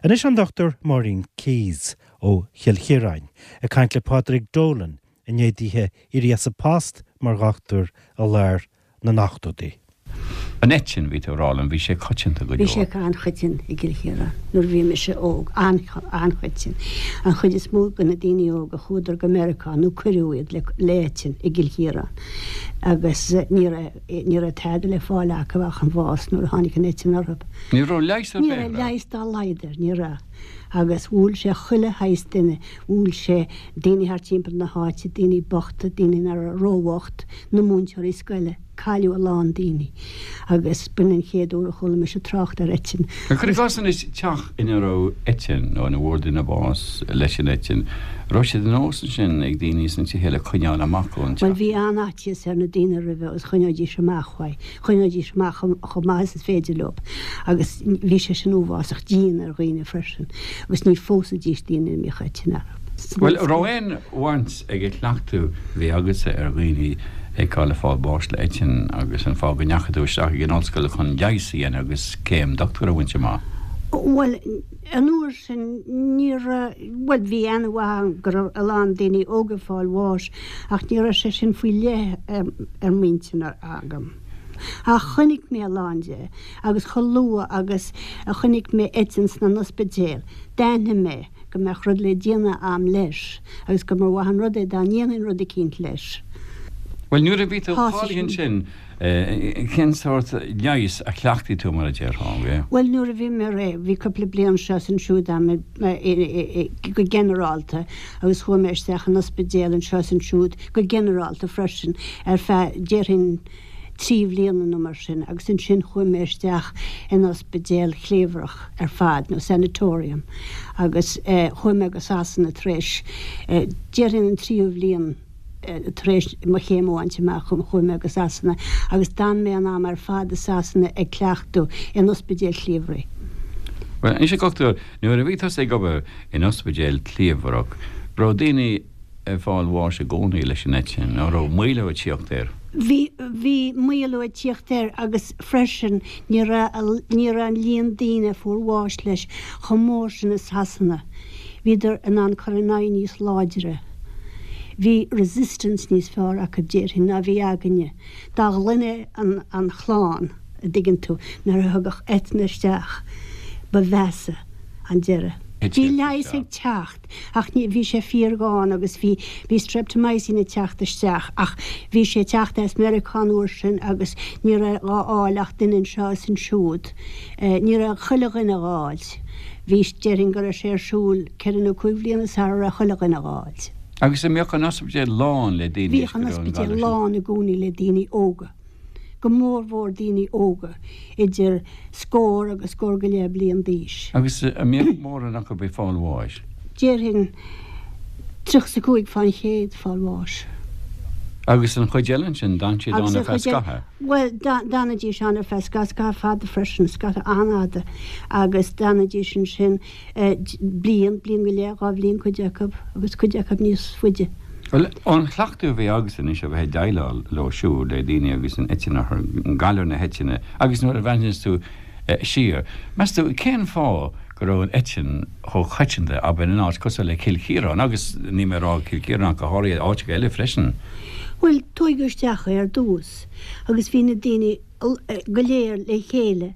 Anois an Dr Máirín Keyes ó Chill Chiaráin ag caint le Pádraig Dolan i ndiaidh dithe éirí as a post mar dhochtúir i lár na n-ochtóidí. An eitinn, bhí tú ag rá liom, bhí sé coitianta go Bhí sé leor. an-choiteann i gCill Chiaráin nuair a bhí mise óg, an-choiteann. An chuid is mó de na daoine óga chuadar go Meiriceá nó cuireadh iad le le eitinn i gCill Chiaráin agus ní raibh ní raibh tada le fáil acu ach an bhás nuair a tháinig an eitinn orthu. Ní raibh leigheas ar Ní bith raibh air. leigheas dá laghad air, ní raibh. Agus bhuail sé chuile shaghas duine, bhuail sé daoine thart timpeall na háite, daoine bochta, daoine nach raibh róbhocht, na múinteoirí scoile. Cailleadh a lán daoine agus b'in an chéad uair a chuala mise trácht ar eitinn. Cuir i gcás anois teach ina raibh eitinn nó ina bhfuair duine bás leis an eitinn, raibh sé de nós ansin ag daoine sna tithe eile coinneáil amach ón Bhuel teach? bhí an-fhaitíos ar na daoine roimhe agus choinneoidís amach uaidh, choinneoidís amach chomh maith is is féidir leo agus bhí sé sin uafásach dian ar dhaoine freisin agus ní phósaidís daoine a mbíodh eitinn orthu. Bhuel, raibh aon bhaint ag an chleachtadh a bhí agatsa ar dhaoine a fheiceáil ag fáil bháis le eitinn agus an fáth go ndeachaigh tú isteach ag an ollscoil chun leigheas a dhéanamh agus céim dochtúra a bhaint amach? Bhuel, an uair sin ní raibh, bhuel bhí aithne mhaith agam go raibh a lán daoine óga ag fáil bháis ach ní raibh sé sin faoi leith ar m'intinn agam. Ach chonaic mé a lán de agus chomh luath agus a chonaic mé eitinn sna n-ospidéal, d'aithnigh mé go mbeadh rud le déanamh a'm leis agus go mba mhaith an rud é dá ndéanfainn rud eicínt leis. Bhuel, nuair a bhí tú Thosaigh cáilithe sin. ansin, cén sórt leighis a chleachtaigh tú, mar a déarfá? Bhuel, nuair a bhí mé réidh, bhí cúpla bliain seo is ansiúd a'm go ginearálta agus chuaigh mé isteach in ospidéal anseo is ansiúd go ginearálta freisin ar feadh, déarfainn, 3 bhliana nó mar sin agus ansin chuaigh mé isteach in ospidéal chliabhrach ar fad nó sanatorium agus chuaigh mé go Sasana tar éis déarfainn an tríú bhliain tar éis mo chéim a bhaint amach chuaigh mé go Sasana agus d'fhan mé an am ar fad i Sasana ag cleachtadh in ospidéal chliabhraigh. Bhuel, anois a dhochtúir, nuair a bhí tusa ag obair in ospidéal cliabhrach, raibh daoine ag fáil bháis i gcónaí leis an eitinn, nó raibh maolú ag tíocht air? Bhí, bhí maolú ag tíocht air agus freisin ní raibh, ní raibh an líon daoine a fuair bháis leis chomh mór sin i Sasana. Bhíodar in ann cur in aghaidh níos láidre. Bhí resistance níos fearr acu déarfainn ná bhí againne. Dá ghlaine an, an chlann, a dtuigeann tú, nuair a thagadh eiteann isteach ba mheasa an deireadh. Bhí leigheas ag teacht. Ach ní, bhí sé fíorghann agus bhí, bhí streptomycin ag teacht isteach ach bhí sé ag teacht as Meiriceá an uair sin agus ní raibh dhá fháil ach duine anseo is ansiúd. Ní raibh chuile dhuine dhá fháilt. Bhí, déarfainn go raibh sé ar siúl ceithre nó cúig bhliana sara raibh chuile dhuine dhá fháilt. Agus an mbeadh an ospidéal lán le daoine Bhíodh an ospidéal lán i gcónaí le daoine óga. go mórmhór daoine óga idir scór agus scór go leith bliain d'aois. Agus an mbeadh mórán acu ag fáil bháis? Déarfainn 35 fán chéad fáil bháis. Agus an chuid eile ansin, d'fhan siad ann ar feadh scaitheamh? Bhuel, d'fhanaidís ann ar feadh scaitheamh fada freisin, scaitheamh an-fhada, agus d'fhanaidís ansin bliain, bliain go leith, 2 bhliain cuid acu, agus cuid acu níos faide. Bhuel, ón chleachtadh a bhí agatsa anois a bheith ag déileáil leo siúd, le daoine agus an eitinn orthu, galar na heitinne, agus nuair a bhreathnaíos tú siar, meas tú cén fáth go raibh an eitinn chomh coitianta, abair, in áit cosúil le Cill Chiaráin, agus níl mé ag rá Cill Chiaráin ach go háirithe, áiteacha eile freisin? Bhuel, tóigeadh isteach é ar dtús agus bhí na daoine go léir le chéile.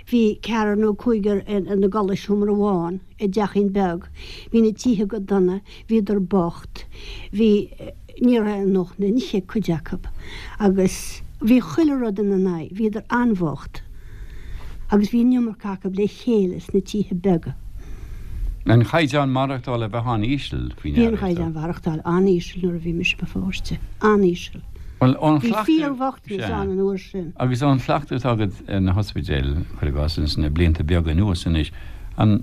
Bhí ceathrar nó cúigear ina gcodladh i seomra amháin i dteachín beag. Bhí na tithe go dona, bhíodar bocht, bhí, ní raibh a ndóthain le n-ithe ag cuid acu agus bhí chuile rud ina n-aghaidh, bhíodar an-bhocht agus bhí an iomarca acu le chéile sna tithe beaga. An chaighdeán maireachtála a bheith an-íseal faoi ndeara. Bhí an chaighdeán mhaireachtáil an-íseal nuair a bhí mise i mo pháiste, an-íseal. Bhuel, ón Bhí chleachtadh, fíorbhochtanas sea. ann an uair sin. Agus ón chleachtadh atá agat ar na hospidéil, cuir i gcás, ins na blianta beaga anuas anois, an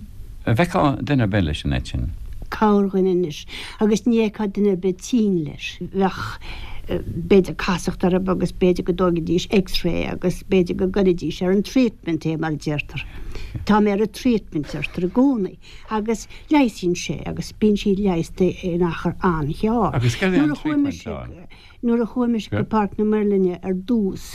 bhfeicfeá duine ar bith leis an eitinn? Corrdhuine anois, agus ní fheicfeá duine ar bith tinn leis. Bheadh, b'fhéidir, casacht orthu agus b'fhéidir go dtógfaidís X-ray agus b'fhéidir go gcuirfidís ar an treatment é, mar a deirtear. Tá mé ar an treatment, deirtear i gcónaí. Agus leigheasaíonn sé agus bíonn siad leigheasta in achar an-ghearr. Agus céard é an Nuair a chuaigh treatment mise, ann? nuair a chuaigh mise go Páirc na Muirlinne ar dtús,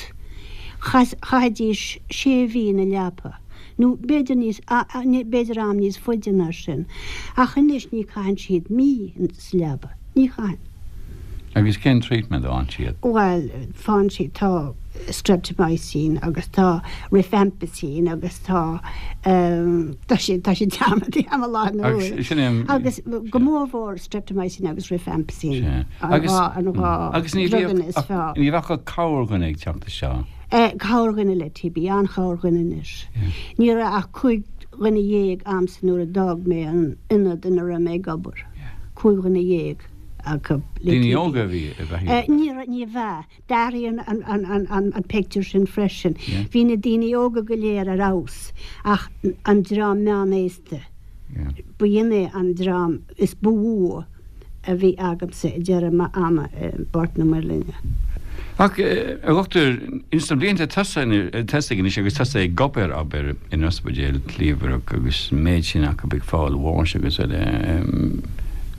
chaithidís sé mhí ina leapa. Nó b'fhéidir níos, b'fhéidir am níos faide ná sin. Ach anois ní chaitheann siad mí sa leaba. Ní chaitheann. Agus cén treatment a fhaigheann siad? Bhuel, faigheann siad, tá streptomycin agus tá rifampicin agus tá, tá sé, tá sé dearmadta agam i láthair na huaire. Agus sin é an. Agus go mórmhór streptomycin agus rifampicin. Sea. An dhá, an dhá Agus ní bhíodh, druganna is fearr. ní bheadh ach corrdhuine ag teacht isteach. Corrdhuine le TB, an-chorrdhuine anois. Ní raibh ach 15 dhuine a'msa nuair a d'fhág mé an ionad ina raibh mé ag obair. 15 dhuine acu le TB. Daoine óga a bhí i bhfeighil? Ní raibh, ní bhea. D'athraigh an pictiúr sin freisin. Bhí na daoine óga go léir ar fheabhas ach an dream meánaosta. B'in é an dream is ba mhó a bhí agamsa ag deireadh m'ama i bPáirc na Muirlinne. Ach, a dhochtúir, ins na blianta tosaigh anois agus tusa ag obair, abair, in ospidéal cliabhrach agus an méid sin acu ag fáil bháis agus eile,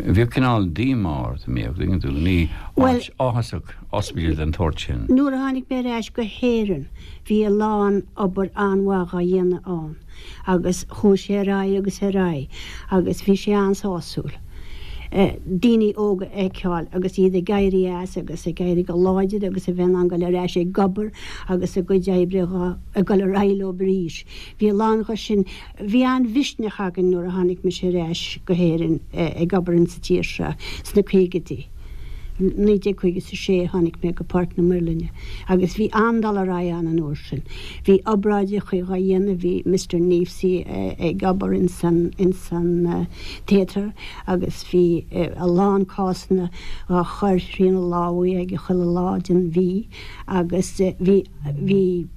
bhíodh cineál díomá ort, an mbíodh, dtuigeann tú, ní áit áthasach ospidéal den tsórt sin. Nuair a tháinig mé ar ais go hÉirinn bhí a lán obair an-mhaith dhá dhéanamh ann. agus chuaigh sé ar aghaidh agus ar aghaidh agus bhí sé an-sásúil daoine óga a fheiceáil agus iad ag éirí as agus ag éirí go láidir agus a bheith in ann dul ar ais ag obair agus a gcuid oibre ag dul ar aghaidh leo arís. Bhí a lán dho sin. Bhí an-mhisneach againn nuair a tháinig mise ar ais go hÉirinn ag obair insa tír seo sna caogaidí. 1956 tháinig mé go Páirc na Muirlinne agus bhí an-dul ar aghaidh ann an uair sin. Bhí obráideachaí dhá dhéanamh, bhí Mister Kneafsey ag obair ins an, ins an theatre agus bhí a lán cásanna dhá chur thrína lámhaí aige chuile lá den mhí agus bhí, bhí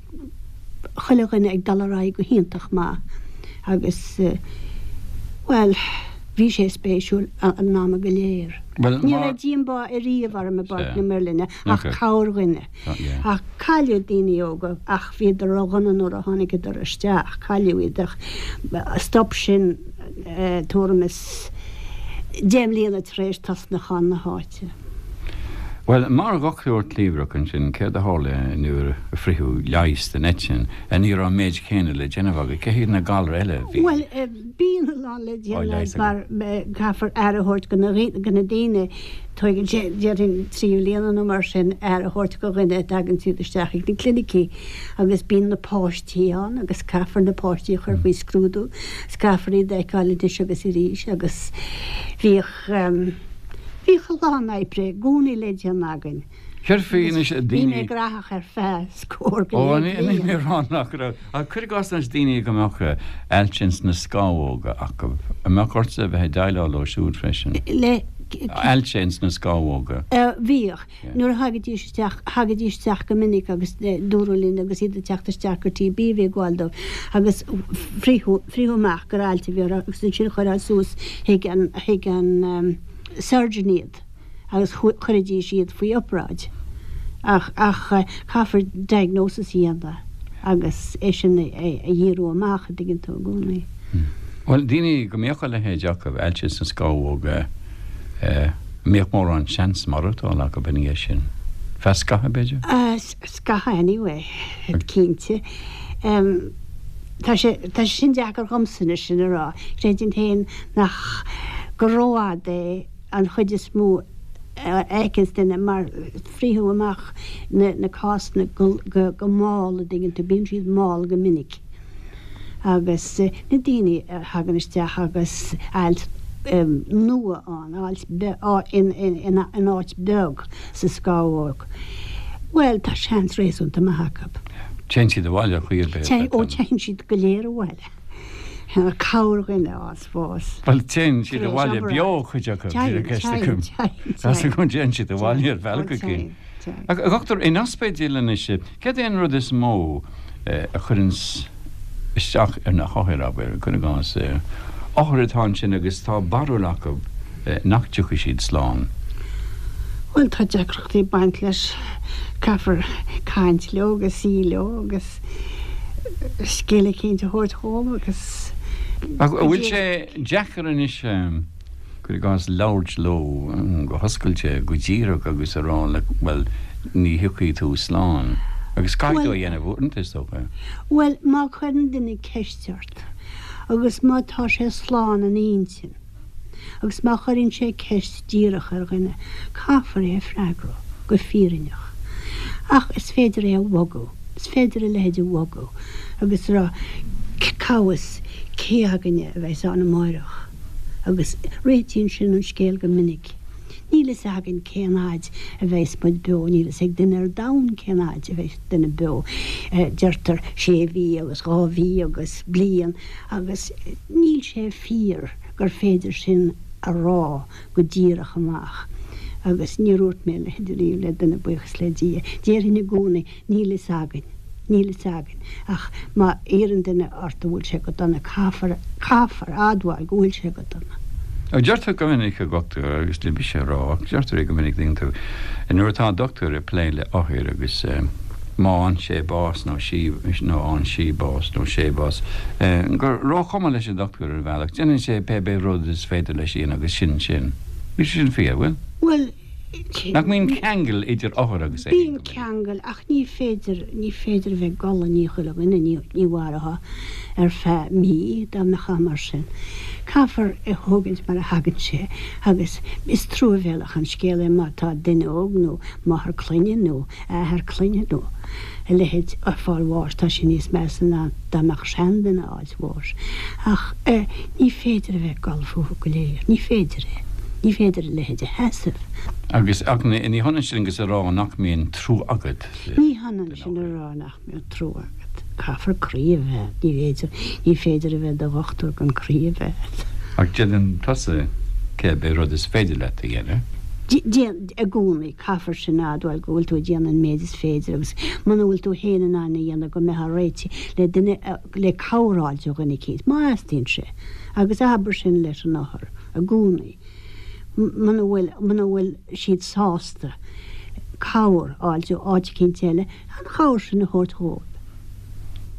chuile dhuine ag dul ar aghaidh go hiontach maith agus, bhuel, bhí sé spéisiúil an ama go léir. Ní raibh díombá ariamh orm i bPáirc na Muirlinne ach corrdhuine. Ach cailleadh daoine óga ach bhíodar ródhona nuair a tháinigeadar isteach, cailleadh iad ach stop sin tuairim is 10 mbliana tar éis tosnachán na háite. Bhuel, mar dhochtúir cliabhrach ansin, céard a tharla nuair a fritheadh leigheas den eitinn? Ní raibh an méid céanna le déanamh agat. Cé hiad na galair eile a bhí Bhuel, bíonn a lán le déanamh mar caithfear aire a thabhairt go na daoine. Tóigeann sé, déarfainn, 3 bhliana nó mar sin aire a thabhairt go dhuine a dtagann siad isteach ag na clinicí agus bíonn na páistí ann agus caithfear na páistí a chur faoi scrúdú 's caithfear iad a fheiceáil anois agus arís agus bhíodh, bhíodh a lán oibre i gcónaí le déanamh againn. Céard faoi anois daoine. Bhí mé graitheach ar feadh scór go leith bliain. Ó, ní mé a rá nach raibh. Ach cuir i gcás anois daoine go mbeadh ailse ins na scamhóga acu. An mbeadh ortsa a bheith ag déileáil leo siúd freisin? Le. Ailse ins na scamhóga. Bhíodh. Nuair a thagaidís isteach, thagaidís isteach go minic agus dúradh linn agus iad ag teacht isteach gur TB a bhí ag gabháil dóibh agus frítheadh, frítheadh amach gur ailse a bhí orthu agus ansin chuirfeá suas chuig an, chuig an surgeon iad. agus chuiridís iad faoi obráid. Ach, ach caithfear diagnosis a dhéanamh agus é sin a dhíriú amach, an dtuigeann tú, i gcónaí. Bhuel, daoine go mbíodh a leithéid acu, ailse sna scamhóga, an mbíodh mórán seans maireachtála acu ina dhiaidh sin? Feadh scaithimh, b'fhéidir? Scaithimh anyway, cinnte. Tá sé, tá sé sin deacair dhomsa anois sin a rá. Creidim féin nach, gur rófhada é an chuid is mó a fheiceanns duine mar frítheadh amach na cásanna go mall, a dtuigeann tú, bíonn siad mall go minic agus na daoine a thagann isteach agus ailt nua ann, ailt in áit beag sa scamhóg, bhuel tá seans réasúnta maith acu. Téann siad abhaile ar chaoi ar bith. Ó téann siad go léir abhaile. Corrdhuine a fhaigheas bás. Bhuel, téann siad abhaile beo, cuid acu, bhí ceist acu. Tá go dtéann siad abhaile ar bhealach éigin. Ach, a dhochtúir, in ospidéal anois, céard é an rud is mó a chuireanns isteach ar na hothair, abair, cuir i gcás, othair atá ansin agus tá barúil acu nach dtiocfaidh siad slán? Bhuel, tá deacrachtaí ag baint leis. Caithfear caint leo agus suí leo agus scéal eicínt a thabhairt dhóibh agus. Ach an bhfuil sé deacair anois, cuir i gcás, labhairt leo go hoscailte, go díreach agus a rá like, bhuel, ní thiocfaidh tú slán? Agus caithfidh tú a dhéanamh uaireanta, is dócha. Bhuel, má chuireann duine ceist ort, agus má tá sé slán ina intinn, agus má chuireann sé ceist díreach ar dhuine, caithfear é a freagrú go fírinneach. Ach is féidir é a bhogadh, is féidir a leithéid a bhogadh agus a rá, cá bhfios cé againne a bheas ann amáireach? Agus réitíonn sin an scéal go minic. Níl fhios againn cén fhaid a bheas muid beo, níl fhios ag duine ar domhan cén fhaid a bheas duine beo. Deirtear sé mhí agus dhá mhí agus bliain agus níl sé fíor gur féidir sin a rá go díreach amach. Agus níor dhúirt mé a leithéid ariamh le duine, buíochas le Dia. Déarfainn i gcónaí, níl fhios againn. Níl fhios againn. Ach má iarrann duine ort an bhfuil sé go dona, caithfear, caithfear admháil go bhfuil sé go dona. Deirtear go minic, a dhochtúir, agus ní mise a rá, ach deirtear é go minic, tuigeann tú, nuair atá dochtúir ag plé le othair agus má fhaigheann sé bás nó sí, nó fhaigheann sí bás nó sé bás, gur róchuma leis an dochtúir ar bhealach, déanann sé pé bith rud is féidir leis a dhéanamh agus sin sin. Níl sé sin fíor, bhfuil? Bhuel, Nach mbíonn ceangal idir othar agus é féin go minic? Bíonn ceangal, ach ní féidir, ní féidir a bheith ag gol i ndiaidh chuile dhuine, ní, ní mhairfeá ar feadh mí dá mbeifeá mar sin. Caithfear é thógaint mar a thagann sé agus is truamhéalach an scéal é má tá duine óg nó máthair clainne nó athair clainne nó a leithéid ag fáil bháis, tá sé níos measa ná dá mbeadh seanduine á bháis. Ach ní féidir a bheith ag gol fúthu go léir. Ní féidir é. Ní féidir a leithéid a sheasamh. Agus, ach ní hionann sin agus a rá nach mbíonn trua agat. Ní hionann sin a rá nach mbíonn trua agat. Caithfear croí a bheith agat. Ní féidir, ní féidir a bheith i do dhochtúir gan croí a bheith agat. Ach déanann tusa cibé rud is féidir leat a dhéanamh. Déan, i gcónaí, caithfear sin a admháil go bhfuil tú ag déanamh an méid is féidir agus muna bhfuil tú féin in ann a dhéanamh go mbeifeá réitithe le duine a le cabhair a fháilt ó dhuine eicínt, má theastaíonn sé, agus abair sin leis an othar i gcónaí, muna bhfuil, muna bhfuil siad sásta cabhair a fháilt ó áit eicínt eile, an chabhair sin a thabhairt dhóibh.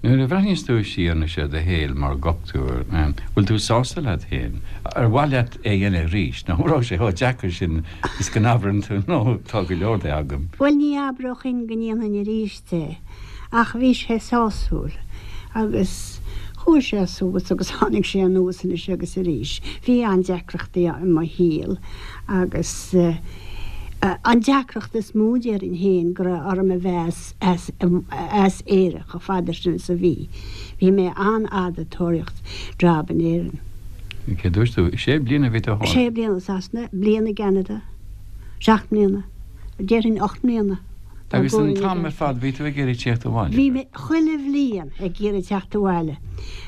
Nuair a bhreathnaíos tú siar anois ar do shaol mar dhochtúir, bhfuil tú sásta leat féin? Ar mhaith leat é a dhéanamh arís, nó an raibh sé chomh deacair sin is go n-abrann tú, no, tá go leor de agam? Bhuel, ní abróchainn go ndéanfainn arís é. Ach bhí sé sásúil agus chuaigh sé suas agus tháinig sé anuas anois agus arís. Bhí an-deacrachtaí i mo shaol agus an deacracht is mó déarfainn féin go raibh orm a bheith as as Éire chomh fada sin is a bhí. Bhí mé an-fhada ag tóraíocht job in Éirinn. Cé dúirt tú? Sé bliana a bhí tú thall? Sé bliana i Sasana, bliain i gCeanada, seacht mbliana, déarfainn 8 mbliana. Agus an t-am ar fad bhí tú ag iarraidh tíocht abhaile? Bhí mé chuile bhliain ag iarraidh teacht abhaile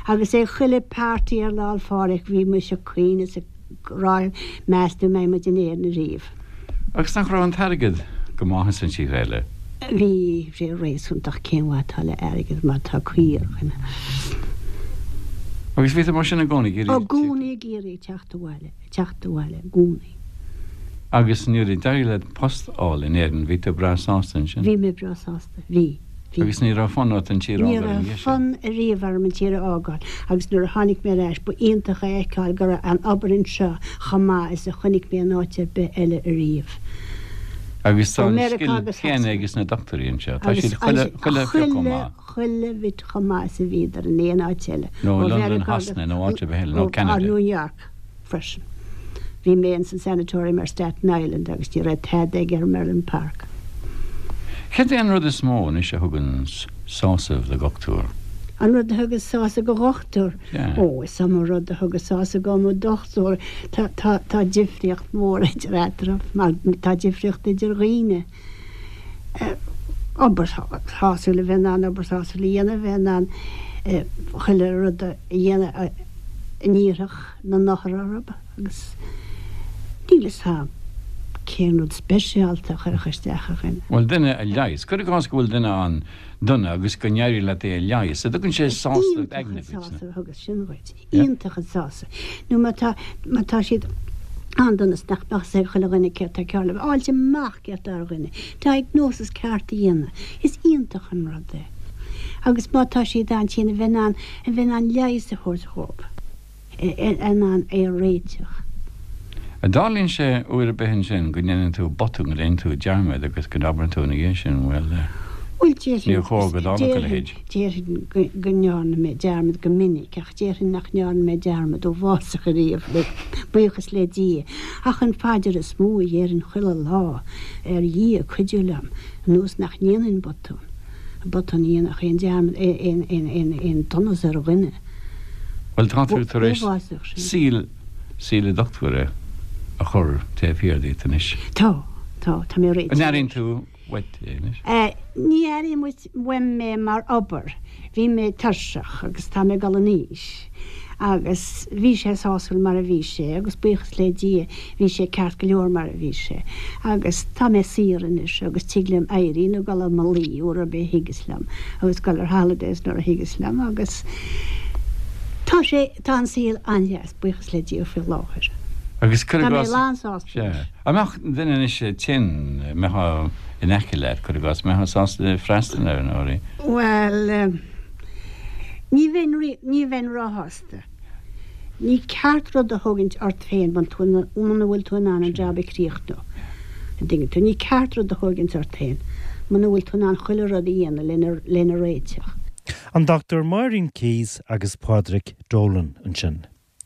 agus ag chuile party ar Lá 'le Phádraig bhí mise ag caoineadh is ag rá meas tú an mbeidh muid in Éirinn ariamh. Agus nach raibh an t-airgead go maith ins an tír eile? Bhí sé réasúnta ach cén mhaith atá le airgead má tá caoi ar dhuine. Agus bhí tú mar sin i gcónaí ag iarraidh I gcónaí ag iarraidh teacht abhaile, teacht abhaile i gcónaí. Agus nuair a d'éirigh leat post a fháil in Éirinn, bhí tú breá sásta ansin? Bhí mé breá sásta, bhí, bhí. Agus ní raibh fonn ort an tír a fhágáil ina dhiaidh sin? Ní raibh fonn ariamh orm an tír a fhágáil agus nuair a tháinig mé ar ais ba iontach a fheiceáil go raibh an obair anseo chomh maith is a chonaic mé in áit ar bith eile ariamh. Agus tá an scil chéanna ages na dochtúirí anseo, tá siad chuile, chuile phioc chomh maith. Chuile bhit chomh maith is a bhíodar in aon áit eile. Nó i Londain, Shasana nó áit ar bith eile, nó Ceanada. New York. freisin. Bhí mé ins an Sanatorium ar Staten Island agus ní raibh tada aige ar Merlin Park. Céard é an rud is mó anois a thugann sásamh do dhochtúir? An rud a thugas sásamh do dhochtúir? Sea. Ó, is iomaí rud a thugas sásamh do mo dhochtúir. Tá, tá, tá difríocht mhór idir eatarthu, mar tá difríocht idir dhaoine. Obair shásúil, a bheith in ann obair shásúil a dhéanamh, a bheith in ann chuile rud a dhéanamh a n-iarrfadh na n-othar orthu agus níl fhios a'm cén rud speisialta a chuirfeadh isteach ar dhuine. Bhuel, duine a leigheas. Cuir i gcás go bhfuil duine an-dona agus go n-éiríonn leat é a leigheas, an dtugann sé sásamh aigne duit? Iontach an sásamh a thugas sin dhuit. Iontach an sásamh. Nó má tá, má tá siad an-dona is nach mbeadh fhios ag chuile dhuine céard tá cearr leo, a fháilt amach céard tá ar dhuine, diagnosis ceart a dhéanamh, is iontach an rud é. Agus má tá siad an-tinn, a bheith in ann, a bheith in ann leigheas a thabhairt dhóibh. in ann é a réiteach. An dtarlaíonn sé uair ar bith ansin go ndéanann tú botún, go ndéanann tú dearmad agus go n-abrann tú ina dhiaidh sin, bhuel, Bhuel, déarfainn, Níor chóir go dtarlódh a leithéid. déarfainn go ndearna mé dearmad go minic, ach déarfainn nach ndearna mé dearmad uafásach ariamh, le buíochas le Dia. Ach an phaidir is mó a dhéarfainn chuile lá ar Dhia cuidiú liom, anuas nach ndéanfainn botún, botún a dhéanfadh aon dearmad, aon, aon, aon, aon donas ar dhuine. Bhuel, tá tú tar éis Uafásach sin. saol, saol dochtúra a chur taobh thiar díot anois. Tá, tá, tá mé réitithe An leis. airíonn tú uait é anois? Ní airím uaim é mar obair. Bhí mé tuirseach agus tá mé ag dul in aois agus bhí sé sásúil mar a bhí sé agus buíochas le Dia bhí sé ceart go leor mar a bhí sé agus tá mé saor anois agus tig liom éirí nó dul i mo luí uair ar bith a thigeas liom agus dul ar holidays nuair a thigeas liom agus tá sé, tá an saol an-deas buíochas le Dia faoi láthair. Agus cuir i Tá mé gcás, lán-sásta sea. leis. An mbeadh duine anois tinn, mbeifeá in aice leat, cuir i gcás, mbeifeá sásta freastal air nó uirthi? Bhuel, ní bheinn, ní bheinn róshásta. Ní ceart rud a thógaint ort féin muna bhfuil tú in ann an jab a chríochnú. An dtuigeann tú? Ní ceart rud a thógaint ort féin muna bhfuil tú in ann chuile rud a dhéanamh lena, lena réiteach. An Dr Máirín Keyes agus Pádraig Dolan ansin.